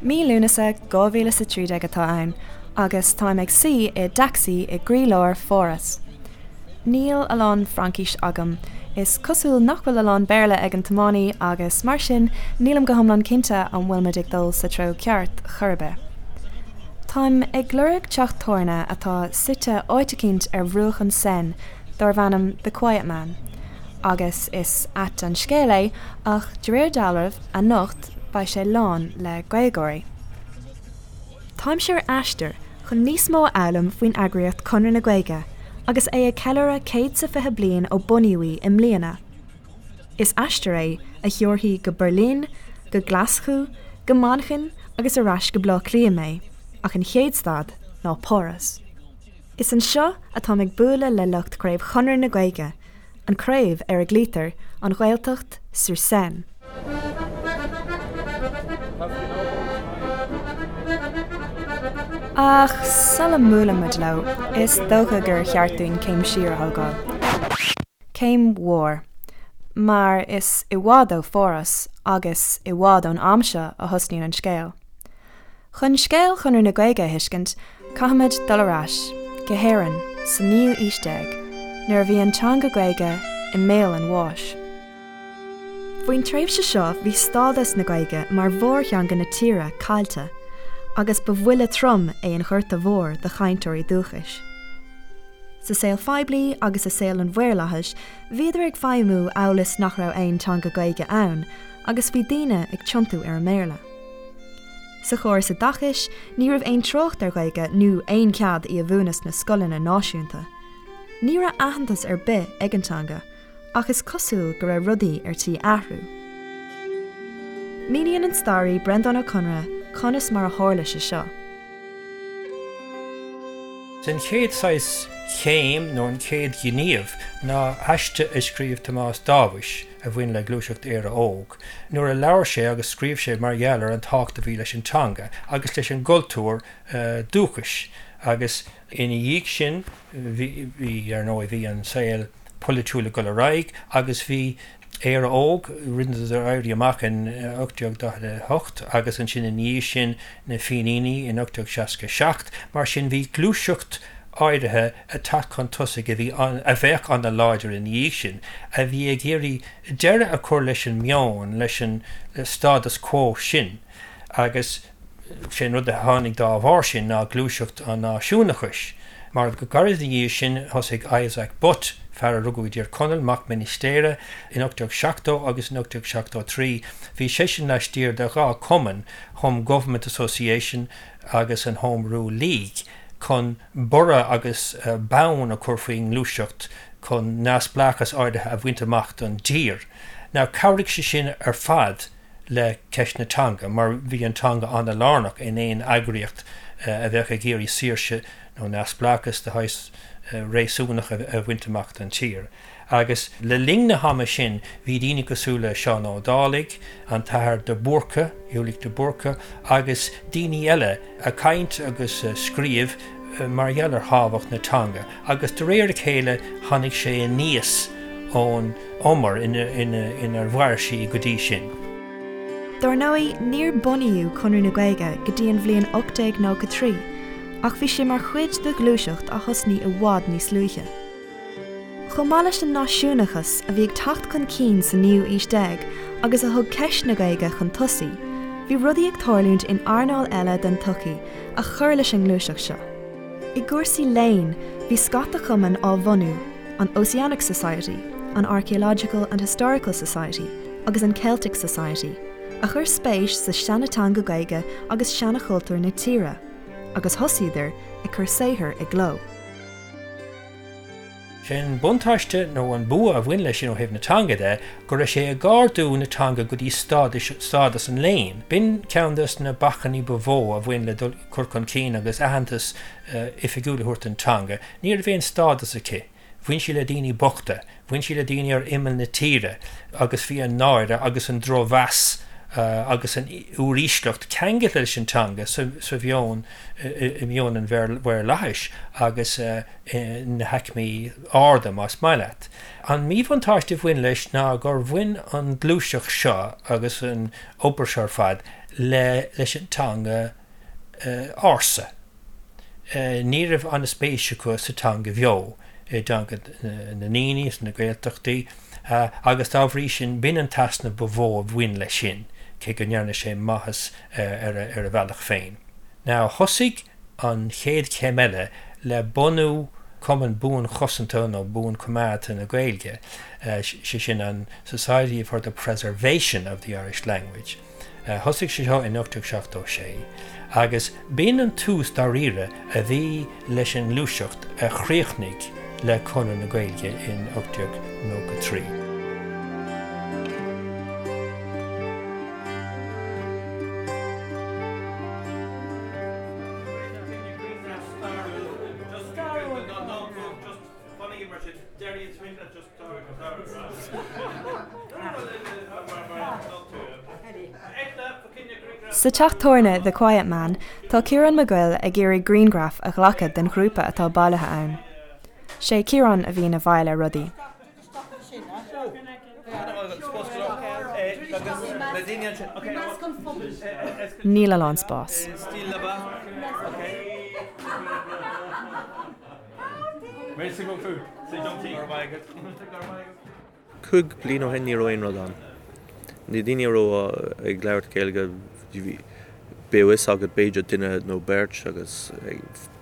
Mí Lúnasa 2013 atá ann agus táim ag suí i dtacsaí i gcroílár Pháras. Níl a lán Fraincís agam, is cosúil nach bhfuil a lán Béarla ag an tiománaí agus mar sin nílim go hiomlán cinnte an bhfuil muid ag dul sa treo ceart chor ar bith. Táim ag lorg teach tábhairne atá suite áit eicínt ar bhruach an Seine darbh ainm The Quiet Man. Agus is ait an scéal é ach de réir dealraimh, anocht beidh sé lán le Gaeilgeoirí. Táimse ar aistear chun níos mó a fhoghlaim faoin eagraíocht Conradh na Gaeilge agus é ag ceiliúradh 120 bliain ó bunaíodh í i mbliana. Is aistear é a thiúrfaidh go Beirlín, go Glaschú, go Manchain agus ar ais go Baile Átha Cliath mé, ach an chéad stad ná Páras. Is anseo atáim ag bualadh le lucht Craobh Chonradh na Gaeilge, an craobh ar a glaoitear an Ghaeltacht sur Seine. Ach sula mbuaileann muid leo, is dócha gur cheart dúinn céim siar a thógáil. Céim mhór. Mar is i bhfad ó Pháras agus i bhfad ón am seo a thosnaíonn an scéal. Chun scéal Chonradh na Gaeilge a thuiscint, caithfimid dul ar ais go hÉirinn sa naoú aois déag, nuair a bhí an teanga Gaeilge i mbéal an bháis. Faoin tréimhse seo bhí stádas na Gaeilge mar mhórtheanga na tíre caillte, agus ba bhuille trom é an Ghorta Mhór do chainteoirí dúchais. Sa saol phoiblí agus i saol an mhaorlathais bhíodar ag feidhmiú amhail is nach raibh aon teanga Gaeilge ann, agus bhí daoine ag tiontú ar an mBéarla. Sa chóras oideachais, ní raibh aon trácht ar Ghaeilge nó aon chead í a mhúineadh sna scoileanna náisiúnta. Ní raibh aitheantas ar bith ag an teanga, ach is cosúil go raibh rudaí ar tí athrú. Míníonn an staraí Breandán Ó Conaire conas mar a tharla sé seo. An chéad saghas chéim nó an chéad ghníomh ná aiste a scríobh Tomás Dáibhis a bhain le Gluaiseacht Éire Óg. nuair a labhair sé agus scríobh sé mar gheall ar an tábhacht a bhí leis an teanga agus leis an gcultúr dúchais agus ina dhiaidh sin bhí, ar ndóigh, bhí an saol polaitiúil ag dul ar aghaidh agus bhí Éire Óg, rinneadar éirí amach in 1848 agus ansin ina dhiaidh sin na Fíníní in 1867, mar sin bhí gluaiseacht áirithe ag teacht chun tosaigh a bhí, a bheadh an-láidir ina dhiaidh sin, a bhí ag iarraidh deireadh a chur leis an meon, leis an status quo sin agus sé an rud a tháinig dá bharr sin ná gluaiseacht an náisiúnachais. Mar go gairid ina dhiaidh sin thosaigh Isaac Butt, fear a rugadh i dTír Chonaill, mac ministéara, in 1870 agus in 1873 bhí seisean laistiar de dhá chumann, Home Government Association agus an Home Rule League, chun borradh agus bonn a chur faoin ngluaiseacht chun neamhspleáchas áirithe a bhaint amach don tír. Now chabhraigh sé sin ar fad le ceist na teanga mar bhí an teanga an-lárnach in aon eagraíocht a bheadh ag iarraidh saoirse nó neamhspleáchas de shaghas réasúnach a bhaint amach don tír. Agus le linn na hama sin bhí daoine cosúil le Seán Ó Dálaigh, an tAthair de Búrca, Ulick de Búrca, agus daoine eile ag caint agus ag scríobh mar gheall ar thábhacht na teanga agus de réir a chéile tháinig sé aníos ón umar inar mhair sí go dtí sin. Dár ndóigh, níor bunaíodh Conradh na Gaeilge go dtí an bhliain 1893 ach bhí sé mar chuid de ghluaiseacht a thosnaigh i bhfad níos luaithe. Chomh maith leis an náisiúnachas a bhí ag teacht chun cinn sa naoú aois déag agus a thug ceist na Gaeilge chun tosaigh, bhí rudaí ag tarlúint in earnáil eile den tsochaí a chuir leis an ngluaiseacht seo. I gcúrsaí léinn, bhí scata cumann á bhunú, an Ossianic Society, an Archaeological and Historical Society agus an Celtic Society, a chuir spéis sa seanateanga Gaeilge agus seanachultúr na tíre, agus thosaíodar ag cur saothar i gcló. Sé an buntáiste nó an bua a bhain leis sin ó thaobh na teanga de go raibh sé ag ardú na teanga go dtí stádas an léinn. B'in ceann des na bacainní ba mhó a bhain le dul cur chun cinn agus aitheantas oifigiúil a thabhairt don teanga. Ní raibh aon stádas aici. Bhain sí le daoine bochta, bhain sí le daoine ar imeall na tíre agus bhí an náire agus an drochmheas agus an úirísleacht ceangailte leis an teanga sa mheon, i meon an mhaorlathais agus na haicmí arda, más maith leat. An míbhuntáiste a bhain leis ná gur bhain an ghluaiseacht seo agus an obair seo ar fad le leis an teanga ársa. Ní raibh an-spéis acu sa teanga bheo, i dteanga na ndaoine sna Gaeltachtaí agus dá bhrí sin b'in an t-easnamh ba mhó a bhain leis sin, cé go ndearna sé maitheas ar a bhealach féin. Now thosaigh an chéad chéim eile le bunú Cumann Buanchosanta nó Buanchoimeádta na Gaeilge, sé sin an Society for the Preservation of the Irish Language. Thosaigh sé seo in 1876 agus b'in an tús dáiríre a bhí leis an ngluaiseacht a chríochnaigh le Conradh na Gaeilge in 1893. Sa teach tábhairne The Quiet Man, tá Ciarán Mac Goill ag iarraidh grianghraf a ghlacadh den ghrúpa atá bailithe ann. Sé Ciarán a bhíonn i bhfeighil ar rudaí. Níl a lán spáis. 5 bliain ó shin ní raibh aon rud ann. Na daoine a raibh ag labhairt Gaeilge bhí a fhios agat b'fhéidir duine nó beirt agus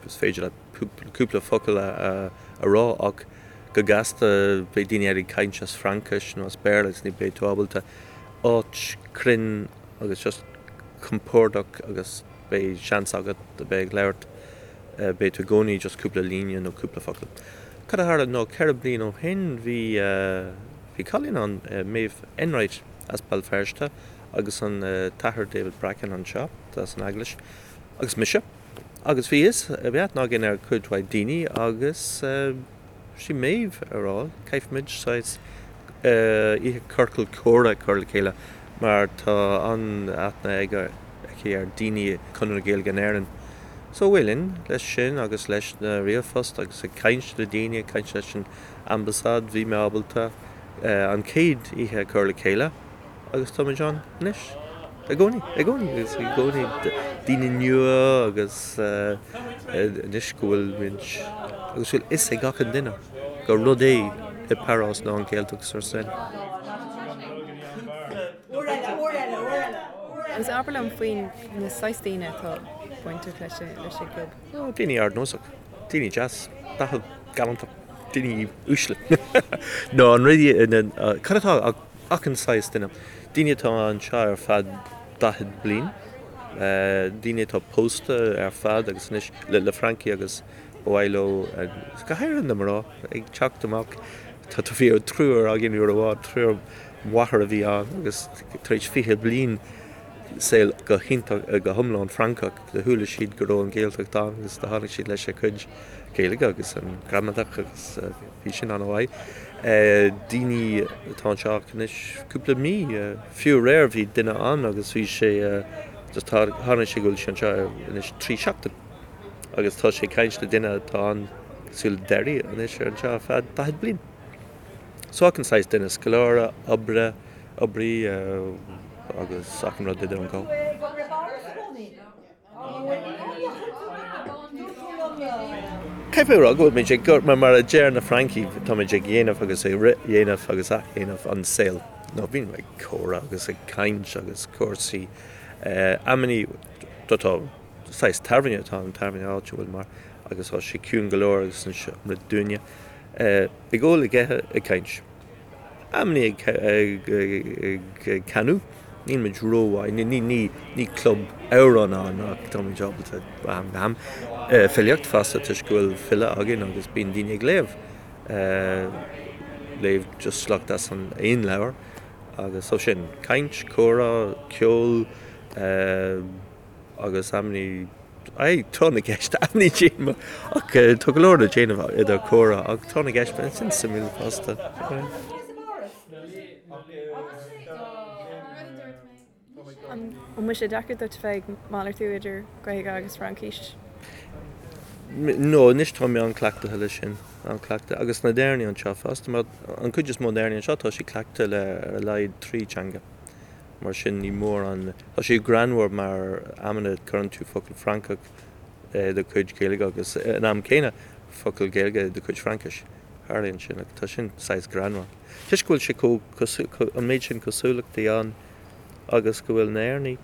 is féidir leat cúpla focal a rá ach go gasta beidh daoine eile ag caint as Fraincis nó as Béarla agus ní beidh tú ábalta áit cruinn agus just compordach agus beidh seans agat a bheith ag labhairt beidh tú i gcónaí just cúpla líne nó cúpla focal. Cad a tharla ná 4 bliain ó shin bhí bhí cailín ann, Maeve Enright as Béal Feirste agus an t-athair David Bracken anseo as an Eaglais agus mise agus bhí fhios bhí aithne againn ar cuid mhaith daoine agus sí Maeve a rá caithfimid saghas oíche ciorcal comhrá a chur le chéile mar tá an-aithne aige aici ar daoine Conradh na Gaeilge in Éirinn. So bhuel linn leis sin agus leis na ríomhphost agus ag caint le daoine, ag caint leis an ambasáid, bhí mé ábalta an chéad oíche a chur le chéile agus táimid ann anois i gcónaí, i gcónaí agus i gcónaí daoine nua agus anois go bhfuil muid agus bhfuil fhios ag achan duine gur rud é i bParás ná an Ghaeltacht sur Seine. Agus abair liom faoi na saghas daoine atá bainteach leis an gclub. Ó, daoine ardnósach, daoine deas, dathúil, galánta, daoine uaisle. Nó an rud, cad atá ach achan saghas duine. Daoine atá anseo ar feadh 40 bliain, daoine atá pósta ar fad agus anois le Francaigh agus ba mhaith leo, go háirithe na mná, ag teacht amach. Tá bhí triúr againn uair amháin, triúr mháthair a bhí ann agus tar éis 20 bliain saol go hiontach, go hiomlán Francach, do chuala siad go raibh an Ghaeltacht ann agus do tháinig siad leis a cuid Gaeilge agus an gramadach agus bhí sin an-mhaith. Daoine atá anseo ach anois cúpla mí, fiú aréir bhí duine ann agus bhí sé, just tháinig sé go bhfuil sé anseo anois 3 seachtain agus tá sé ag caint le duine atá ann cosúil le Derry anois ar anseo ar feadh 40 bliain. So achan saghas duine, scoláire, oibre, oibrí agus achan rud idir an dhá. Caithfidh mé a rá go bhfuil muid ag, mar a deir na Francaigh, táimid ag dhéanamh agus ag frithdhéanamh agus athdhéanamh an saol. Nó bíonn ag comhrá agus ag caint agus cúrsaí amannaí tá saghas tábhairne atá an tábhairne áitiúil mar agus tá sé ciúin go leor agus an rud dúinne. Ag ól, ag ithe, ag caint. Amannaí ag canadh. Níl muid rómhaith, ní club amhrán ann ach táimid ábalta ó am go ham. Filíocht fosta toisc go bhfuil file againn agus bíonn daoine ag léamh. Léamh just sliocht as an aon leabhar agus so sin, caint, comhrá, ceol agus amannaí, aye, tráth na gceist, amannaí díoma ach tá go leor le déanamh idir comhrá ach tráth na gceist, sin suimiúil fosta. An bhfuil sé deacair duit bheith ag malartú idir Gaeilge agus Fraincis? No, anois tá mé an-cleachtaithe leis sin, an-cleachtaithe. Agus na hÉireannaigh anseo fosta, mar an cuid is mó d'Éireannaigh anseo tá siad cleachtaithe le ar a laghad 3 teanga. Mar sin ní mór an, tá sé greannmhar mar amanna cuireann tú focal Francach i do chuid Gaeilge agus an am céanna focal Gaeilge i do chuid Fraincis. Tharlaíonn sin agus tá sin saghas greannmhar. Toisc go bhfuil sé chomh, an méid sin cosúlachtaí ann agus go bhfuil na hÉireannaigh,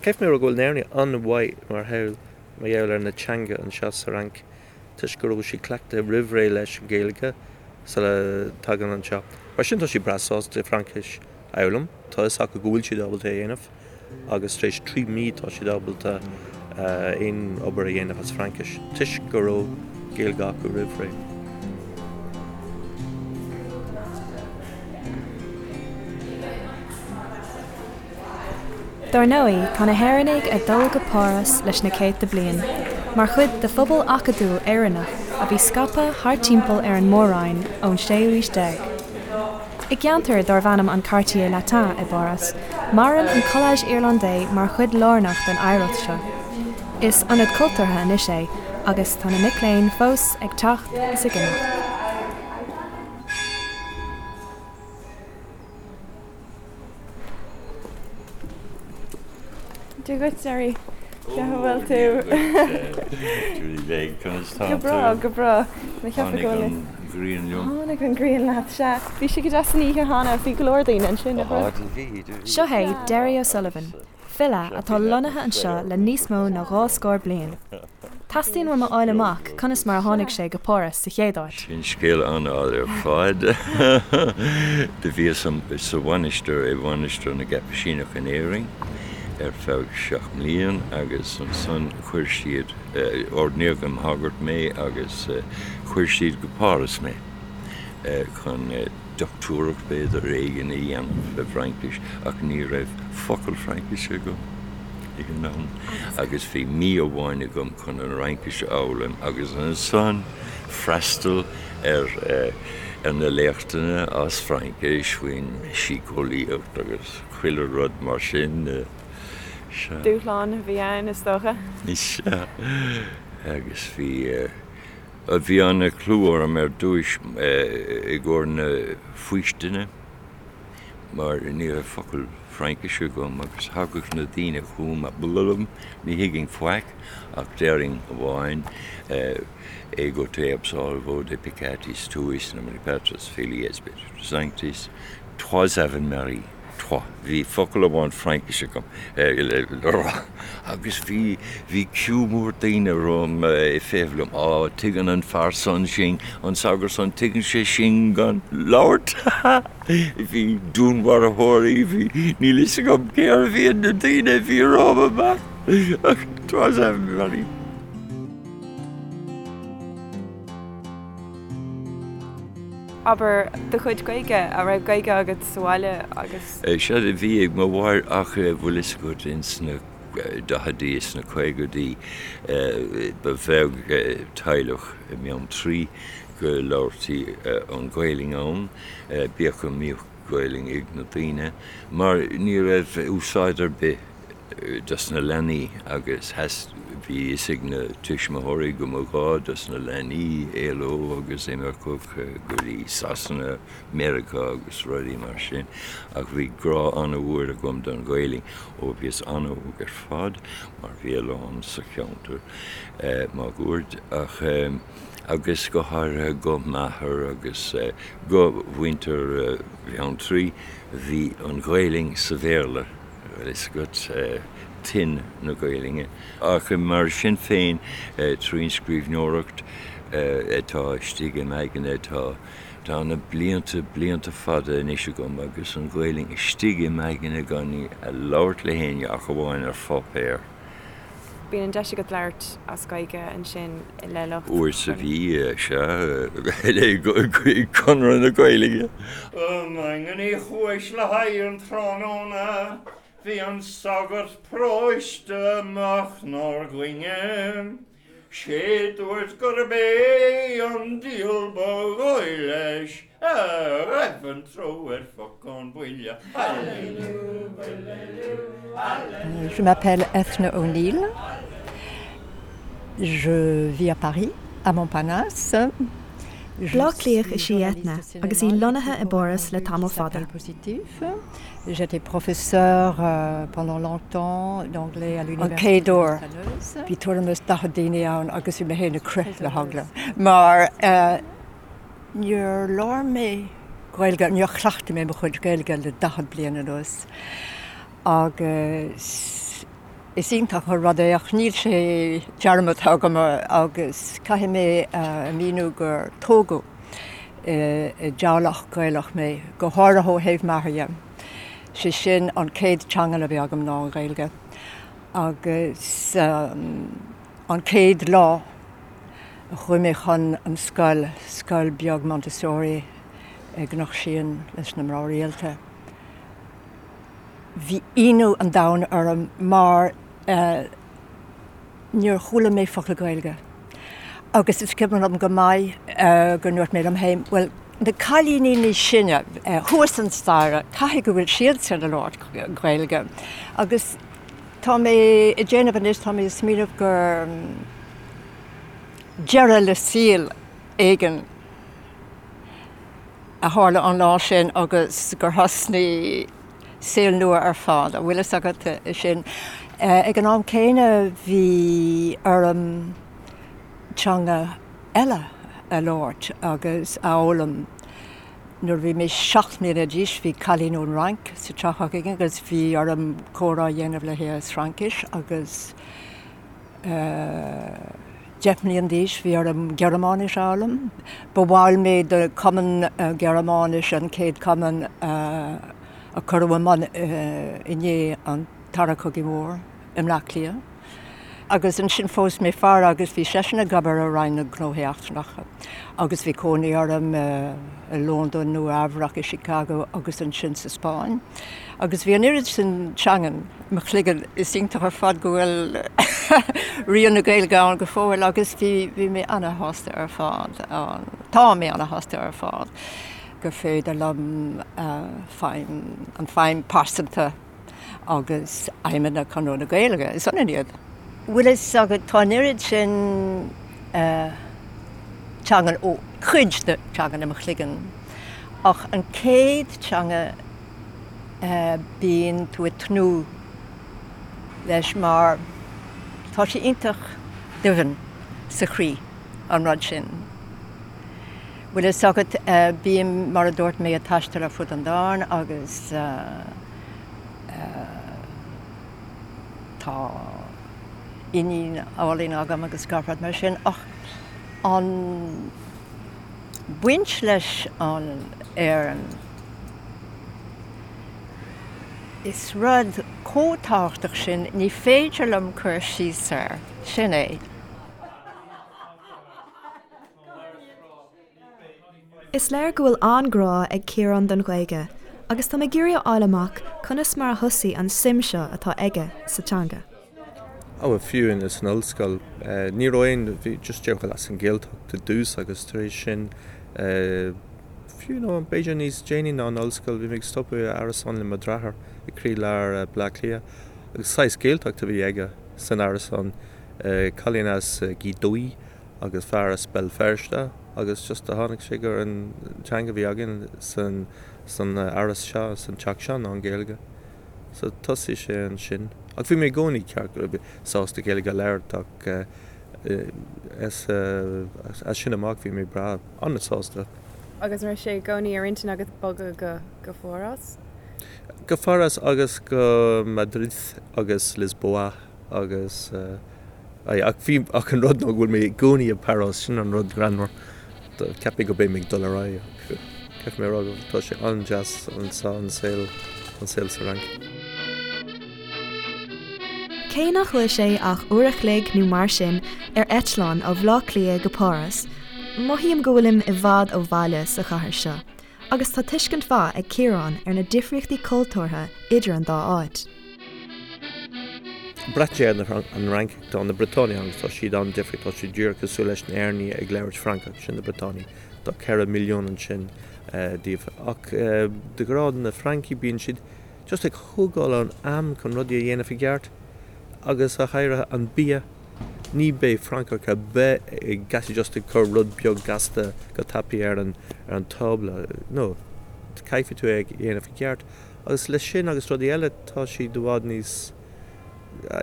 caithfidh mé a rá go bhfuil na hÉireannaigh an-mhaith mar gheall, mar gheall ar na teanga anseo sa Fhrainc toisc go raibh siad cleachtaithe roimh ré leis an Ghaeilge sula dtagann anseo. Mar sin tá siad breá sásta Fraincis a fhoghlaim, tá a fhios acu go bhfuil siad ábalta é a dhéanamh agus tar éis 3 mí tá siad ábalta aon obair a dhéanamh as Fraincis toisc go raibh Gaeilge acu roimh ré. Dar ndóigh, tá na hÉireannaigh ag dul go Páras leis na céadta bliain, mar chuid de phobal acadúil Éireannach a bhí scaipthe thart timpeall ar an Mór-Roinn ón séú haois déag. I gceantar darbh ainm an Quartier Latin i bPáras, maireann an Collège Irlandais mar chuid lárnach den oidhreacht seo. Is ionad cultúrtha anois é agus tá na mic léinn fós ag teacht is ag imeacht. Dia dhuit, Gerry. Cén chaoi a bhfuil tú? Julie Bheag, conas tá tú? Go breá, go breá. Tháinig an ghrian liom. Tháinig an ghrian leat, sea. Bhí sé go deas san oíche cheana, bhí go leor daoine ansin, nach raibh? Bhí, bhí. Seo é Derry O'Sullivan, file atá lonnaithe anseo le níos mó ná 20 bliain. Teastaíonn uaim a fháil amach conas mar a tháinig sé go Páras sa chéad áit. Sin scéal an-fhada ar fad. Do bhíos sa mhainistir, i Mhainistir na gCaipisíneach in Éirinn ar feadh seacht mblian agus ansan chuir siad, ordnaíodh im shagart mé agus chuir siad go Páras mé chun dochtúireacht b'fhéidir éigin a dhéanamh i bhFraincis ach ní raibh focal Fraincise agam ag an am agus bhí mí amháin agam chun an Fhraincis a fhoghlaim agus ansan freastal ar ar na léachtanna as Fraincis faoin síceolaíocht agus chuile rud mar sin. Sea. Dúshlán a bhí ann is dócha. Sea. Agus bhí. Bhí an-chlú orm ar dtúis i gcomhair na faoistine mar ní raibh focal Fraincise agam agus thagadh na daoine chugam blablabla, ní thuigfinn faic ach déarfainn amháin Ego te absolvo de peccatis tuis in nomine Patris Filii et Spiritus Sanctis, trois Ave Marie. Trois. Bhí focal amháin Fraincise agam le rá agus bhí, bhí ciú mór daoine romham ag feitheamh liom, Á, tuigeann an fear san sinn, an sagart san, tuigeann sé sinn gan labhairt. Bhí dúnmharfóirí, bhí, níl fhios agam cérbh iad na daoine a bhí romham amach ach trois Ave Marie. Abair, do chuid Gaeilge, an raibh Gaeilge agat sa bhaile agus. Sea, bhí ag mo mháthair ach bhfuil fhios agat ins na daicheadaí is na caogaidí ba bheag teaghlach i mBeanntraí go labhartaí an Ghaelainn ann, bíodh go mbíodh Gaelainn ag na daoine, mar ní raibh úsáid ar bith dos na leanaí agus bhí fhios ag na tuismitheoirí go mba ghá dos na leanaí éaló agus imeacht go dtí Sasana, Meiriceá agus rudaí mar sin ach bhí grá an-mhór agam don Ghaelainn ó bhíos an-óg ar fad mar bhí a lán sa cheantar máguaird ach agus go háirithe go m'athair agus go mhuintir Bheanntraí bhí an Ghaelainn sa Bhéarla. bhfuil fhios agat, tuin na Gaelainne. Ach mar sin féin, trín scríbhneoireacht atá istigh im aigne, tá, tá na blianta, blianta fada anois agam agus an Ghaelainn istigh im aigne gan í a labhairt le héinne ach amháin ar pháipéar. Bíonn an deis agat labhairt as Gaeilge ansin le lucht. Uair sa mhí, sea, le Conradh na Gaeilge. I nDaingean Uí Chúis le haghaidh an tráthnóna bhí an sagart paróiste amach 'nár gcoinne. Sé dúirt gurb é an diabhal ba dhóigh leis a raibh an treo ar phocán buile. Je m'appelle Ethna O'Neill. Je vis à Paris, à Montparnasse. Bleá Cliathach is í Eithne agus í lonnaithe i bPáras le tamall fada. J'étais professeur pendant longtemps d'anglais à l'université. An chéad uair, bhí tuairim is 40 daoine ann agus bhí mé féin ag crith le heagla mar níor labhair mé Gaeilge, níor chleachtaigh mé mo chuid Gaeilge le 40 bliain anuas agus is iontach an rud é ach níl sé dearmadta agam agus caithfidh mé a mhíniú gur tógadh i dteaghlach Gaelach mé, go háirithe ó thaobh m'athar dhe. Sé sin an chéad teanga a bhí agam ná an Ghaeilge. Agus an chéad lá a chuaigh mé chun an scoil, scoil beag Montessori i gCnoc Síon leis na mná rialta, bhí ionadh an domhain orm mar níor chuala mé focal Gaeilge. Agus is cuimhin liom go maith go ndúirt mé liom féin, bhuel, na cailíní níos sine thuas an staighre, caithfidh go bhfuil siadsan ag labhairt Gaeilge. Agus tá mé ag déanamh anois, tá mé ag smaoineamh gur deireadh le saol éigin a tharla an lá sin agus gur thosnaigh saol nua ar fad, an bhfuil fhios agat é sin. Ag an am céanna bhí orm teanga eile a labhairt agus a fhoghlaim. Nuair a bhí mé 7 mbliana d'aois bhí cailín ón Fhrainc sa teach againn agus bhí orm comhrá a dhéanamh léi as Fraincis agus 10 mbliana d'aois bhí orm Gearmáinis a fhoghlaim. Ba bhall mé de Cumann Gearmáinis, an chéad cumann a cuireadh i mbun i ndiaidh an Dara Cogaidh Mhór i mBleá Cliath. Agus ansin phós mé fear agus bhí seisean ag obair i Roinn na Gnóthaí Eachtrannacha agus bhí cónaí orm i Londain, Nua Eabhrac, i Chicago agus ansin sa Spáinn. Agus bhí an oiread sin teangan i mo chloigeann, is iontach ar fad go bhfuil rian na Gaeilge ann go fóill agus bhí bhí mé ana-shásta ar fad, tá mé ana-shásta ar fad gur féidir liom feidhm, an feidhm pearsanta agus aidhmeanna Chonradh na Gaeilge, is ionann iad. Bhfuil fhios agat, tá an oiread sin teangan, ó cuid de teangan i mo chloigeann ach an chéad teanga bíonn tú ag tnúth leis mar tá sé iontach doimhin sa chroí, an rud sin. Bhfuil fhios agat, bím, mar a dúirt mé, ag taisteal ar fud an domhain agus tá iníon álainn agam agus gach rud mar sin ach an baint leis an Éirinn, Is rud chomh tábhachtach sin, ní féidir liom cur síos air. Sin é. Is léir go bhfuil an-grá ag Ciarán don Ghaeilge agus tá mé ag iarraidh a fháil amach conas mar a thosaigh an suim seo atá aige sa teanga. Á bhuel fiú in san ollscoil ní raibh aon, bhí just díreach as an Ghaeltacht i dtús agus tar éis sin fiú nó b'fhéidir níos déanaí ná an ollscoil bhí mé ag stopadh i árasán le mo dheartháir i gcroílár Bleá Cliath agus saghas Gaeltacht a bhí aige san árasán, cailín as Gaoth Dobhair agus fear as Béal Feirste agus just a tháinig sé gur an teanga a bhí againn san san áras seo, san teach seo ná an Ghaeilge. So thosaigh sé ansin. Ach bhí mé i gcónaí ceart go sásta Gaeilge a labhairt ach as as sin amach bhí mé breá an-sásta. Agus an raibh sé i gcónaí ar intinn agat bogadh go go Pháras? Go Pháras agus go Madrid agus Lisboa agus aye ach bhí ach an rud ná go bhfuil mé i gcónaí i bPáras sin an rud greannmhar. Cheap mé go beidh mé ag dul ar aghaidh ach caithfidh mé a rá go tá sé an-deas anseo an saol an saol sa Fhrainc. Cé nach bhfuil sé ach uair a chloig nó mar sin ar eitleán ó Bhaile Átha Cliath go Páras, mothaím go bhfuilim i bhfad ó bhaile sa chathair seo, agus tá tuiscint mhaith ag Ciarán ar na difríochtaí cultúrtha idir an dá áit. Braitheann sé ar an Fhrainc, tá na Briotánaigh agus tá siad an-difriúil, tá siad díreach cosúil leis na hÉireannaigh ag labhairt Francach, sin na Briotánaigh, tá 4 milliún ansin díobh. Ach de ghnáth na Francaigh bíonn siad just ag thógáil an am chun rudaí a dhéanamh i gceart agus go háirithe an bia. Ní beidh Francach ar bith ag gasta just ag cur rud beag gasta go tapaidh ar an ar an tábla. No, caithfidh tú é a dhéanamh i gceart. Agus leis sin agus rudaí eile tá siad i bhfad níos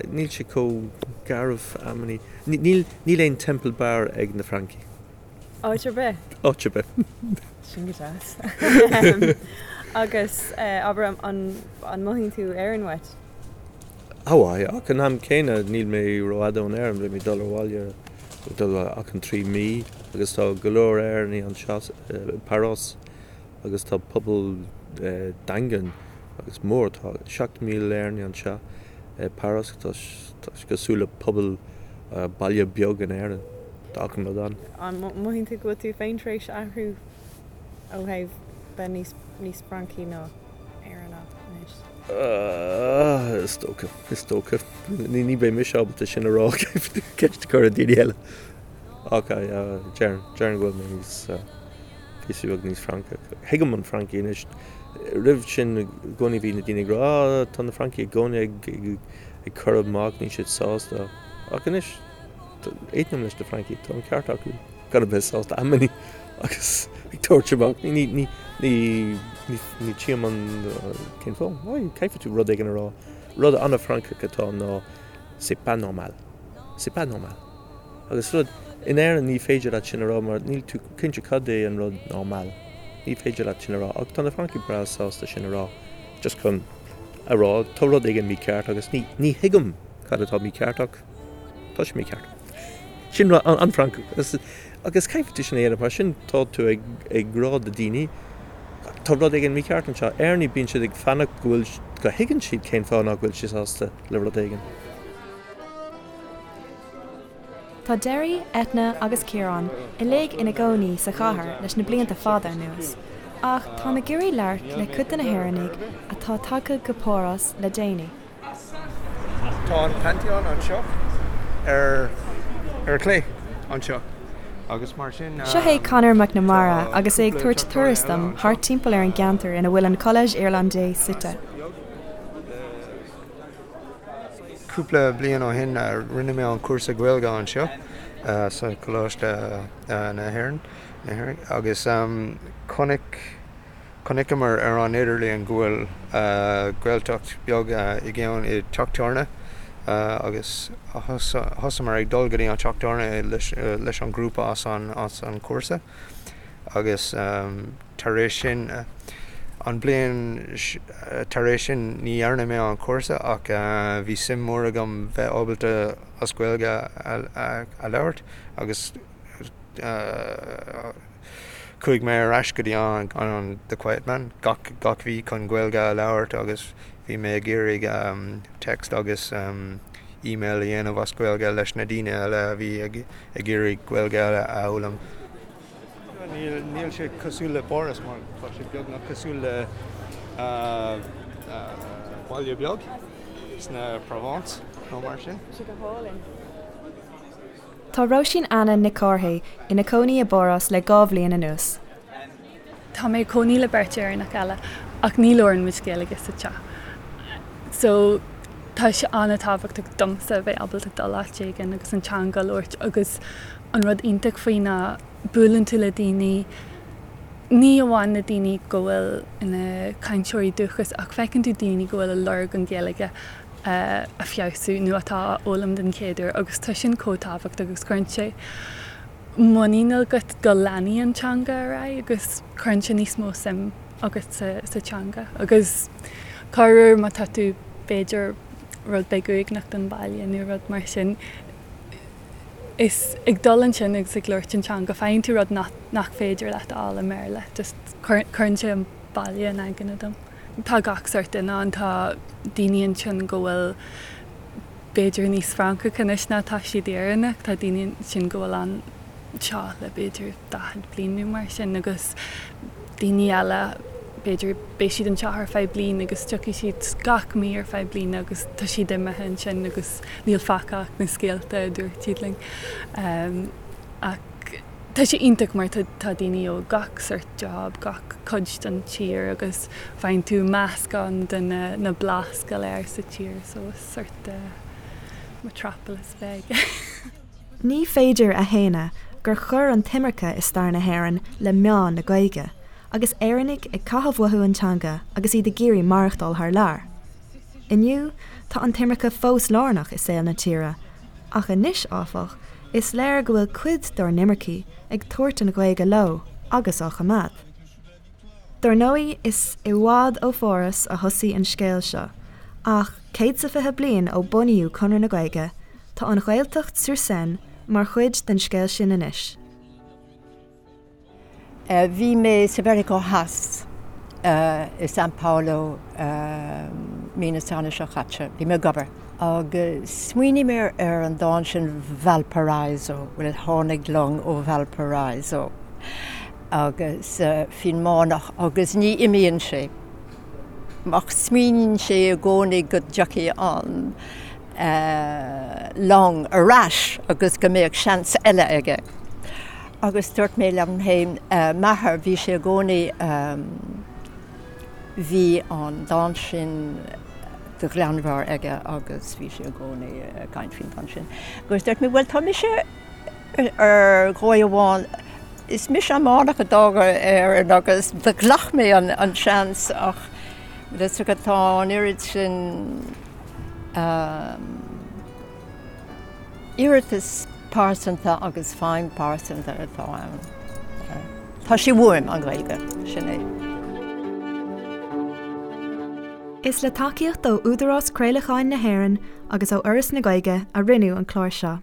níl sé chomh garbh amannaí. Níl níl aon Temple Bar ag na Francaigh. Áit ar bith? Áit ar bith. Sin go deas. Agus abair an mothaíonn tú Éirinn uait? Ó aye, ach an am céanna níl mé rófhada ón Éirinn, beidh mé ag dul abhaile dul achan 3 mí agus tá go leor Éireannaigh anseo i bPáras agus tá pobal daingean agus mór, tá 7,000 Éireannaigh anseo i bPáras, tá sé cosúil le pobal baile beag in Éirinn. Tá achan rud ann. An mothaíonn tú go bhfuil tú féin tar éis athrú ó thaobh bheith níos níos Francaí ná Éireannach anois? Is dócha, is dócha. Ní beidh mise ábalta sin a rá, ceist a chur ar daoine eile. Ach déarfainn, déarfainn go bhfuil mé níos, píosa beag níos Francach. Thuigim an Francaigh anois. Roimh sin i gcónaí bhí na daoine ag rá, ah, tá na Francaigh i gcónaí ag ag cur amach, níl siad sásta. Ach anois, Aontaím leis na Francaigh, tá an ceart acu gan a bheith sásta amannaí agus ag tabhairt amach. Ní, ní, ní, ní, ní tchím an, cén fáth? Why, caithfidh tú rud éigin a rá. Rud an-Fhrancach atá ann ná c'est pas normal. C'est pas normal. Agus rud, in Éirinn ní féidir leat sin a rá mar níl tú cinnte cad é an rud normal. Ní féidir leat sin a rá ach tá na Francaigh breá sásta sin a rá just chun a rá tá rud éigin mícheart agus ní, ní thuigim cad atá mícheart ach Tá sé mícheart. Sin an Francach. Agus caithfidh tú sin a dhéanamh mar sin tá tú ag ag rá do daoine tá rud éigin mícheart anseo. Éireannaigh bíonn siad ag fanacht go bhfuil go thuigeann siad cén fáth nach bhfuil siad sásta le rud éigin. Tá Derry, Eithne agus Ciarán uilig ina gcónaí sa chathair leis na blianta fada anuas, ach táim ag iarraidh labhairt le cuid de na hÉireannaigh atá tagtha go Páras le déanaí. Tá an Pantheon anseo ar ar clé anseo agus mar sin. Seo é Conor McNamara agus é ag tabhairt turas dom thart timpeall ar an gceantar ina bhfuil an Collège Irlandais suite. Cúpla bliain ó shin rinne mé an cúrsa Gaeilge anseo sa Choláiste na hÉireann agus chonaic Chonaiceamar ar an idirlíon go bhfuil Gaeltacht beag i gceann i dteach tábhairne agus thosamar ag dul go dtí an teach tábhairne leis an grúpa as an chúrsa agus tar éis sin an bliain tar éis sin ní dhearna mé an cúrsa ach bhí suim mór agam bheith ábalta as Gaeilge a labhairt agus Chuaigh mé ar ais go dtí an The Quiet Man gach gach mhí chun Gaeilge a labhairt agus bhí mé ag iarraidh text agus email a dhéanamh as Gaeilge leis na daoine eile a bhí ag ag iarraidh Gaeilge a fhoghlaim. Níl níl sé cosúil le Páras mar tá sé beagnach cosúil le baile beag sna Provence nó mar sin. Tá sé go hálainn. Tá Róisín Anna Nic Cárthaigh ina cónaí i bPáras le 2 bhliain anuas. Tá mé ag cónaí le beirt Éireannach eile ach ní labhrann muid Gaeilge sa teach. So tá sé an-tábhachtach domsa a bheith ábalta dul áit éigin agus an teanga a labhairt agus an rud iontach faoi ná buaileann tú le daoine, ní amháin na daoine go bhfuil ina cainteoirí dúchais ach feiceann tú daoine go bhfuil ag lorg an Ghaeilge a feabhsú nó atá á fhoghlaim den chéad uair agus tá sin chomh tábhachtach agus cuireann sé muinín agat go leanfaidh an teanga ar aghaidh agus cuireann sé níos mó suim agat sa teanga agus corruair má tá tú b'fhéidir rud beag uaigneach don bhaile nó rud mar sin is ag dul ansin agus ag labhairt an teanga faigheann tú rud nach féidir leat a fháil i mBéarla just cuireann sé an baile in aigne dom. Tá gach sórt duine ann, tá daoine ansin go bhfuil. b'fhéidir níos Francacha anois ná tá siad Éireannach, tá daoine ansin go bhfuil anseo le b'fhéidir 40 bliain nó mar sin agus daoine eile b'fhéidir beidh siad anseo ar feadh bliain agus tiocfaidh siad gach mí ar feadh bliana agus tá siad imithe ansin agus níl fágtha ach na scéalta a dúirt siad linn. Ach tá sé iontach mar tá daoine ó gach sort job, gach cuid den tír agus faigheann tú meascán de na blas go léir sa tír so is sort de metropolis beag é. Ní féidir a shéanadh gur chuir an t-imirce i stair na hÉireann le meath na Gaeilge, agus Éireannaigh ag caitheamh uathu an teanga agus iad ag iarraidh maireachtáil thar lear. Inniu, tá an t-imirce fós lárnach i saol na tíre, ach anois, áfach, is léir go bhfuil cuid dár n-imircigh ag tabhairt an Ghaeilge leo agus á choimeád. Dar ndóigh, is i bhfad ó Pháras a thosaigh an scéal seo, ach 120 bliain ó bunaíodh Conradh na Gaeilge, tá an Ghaeltacht sur Seine mar chuid den scéal sin anois. Bhí mé sa Mheiriceá Theas, i São Paulo, mí na Samhna seo caite. Bhí mé ag obair. Agus smaoinigh mé ar an dán sin Valparaiso, bhuel tháinig long ó Valparaiso agus faoin mbánach agus ní imíonn sé ach smaoiníonn sé i gcónaí go dtiocfaidh an long ar ais agus go mbeadh seans eile aige. Agus dúirt mé liom féin, m'athair, bhí sé i gcónaí, bhí an dán sin de ghlanmheabhair aige agus bhí sé i gcónaí ag caint faoin dán sin. Agus dúirt mé, bhuel tá mise ar dhóigh amháin, is mise an bánach a d'fhág Éirinn agus do ghlac mé an seans ach is tá an oiread sin iarratas pearsanta agus feidhm pearsanta atá ann. Tá sé uaim, an Ghaeilge, sin é. Is le tacaíocht ó Údarás Craolacháin na hÉireann agus ó Fhoras na Gaeilge a rinneadh an clár seo.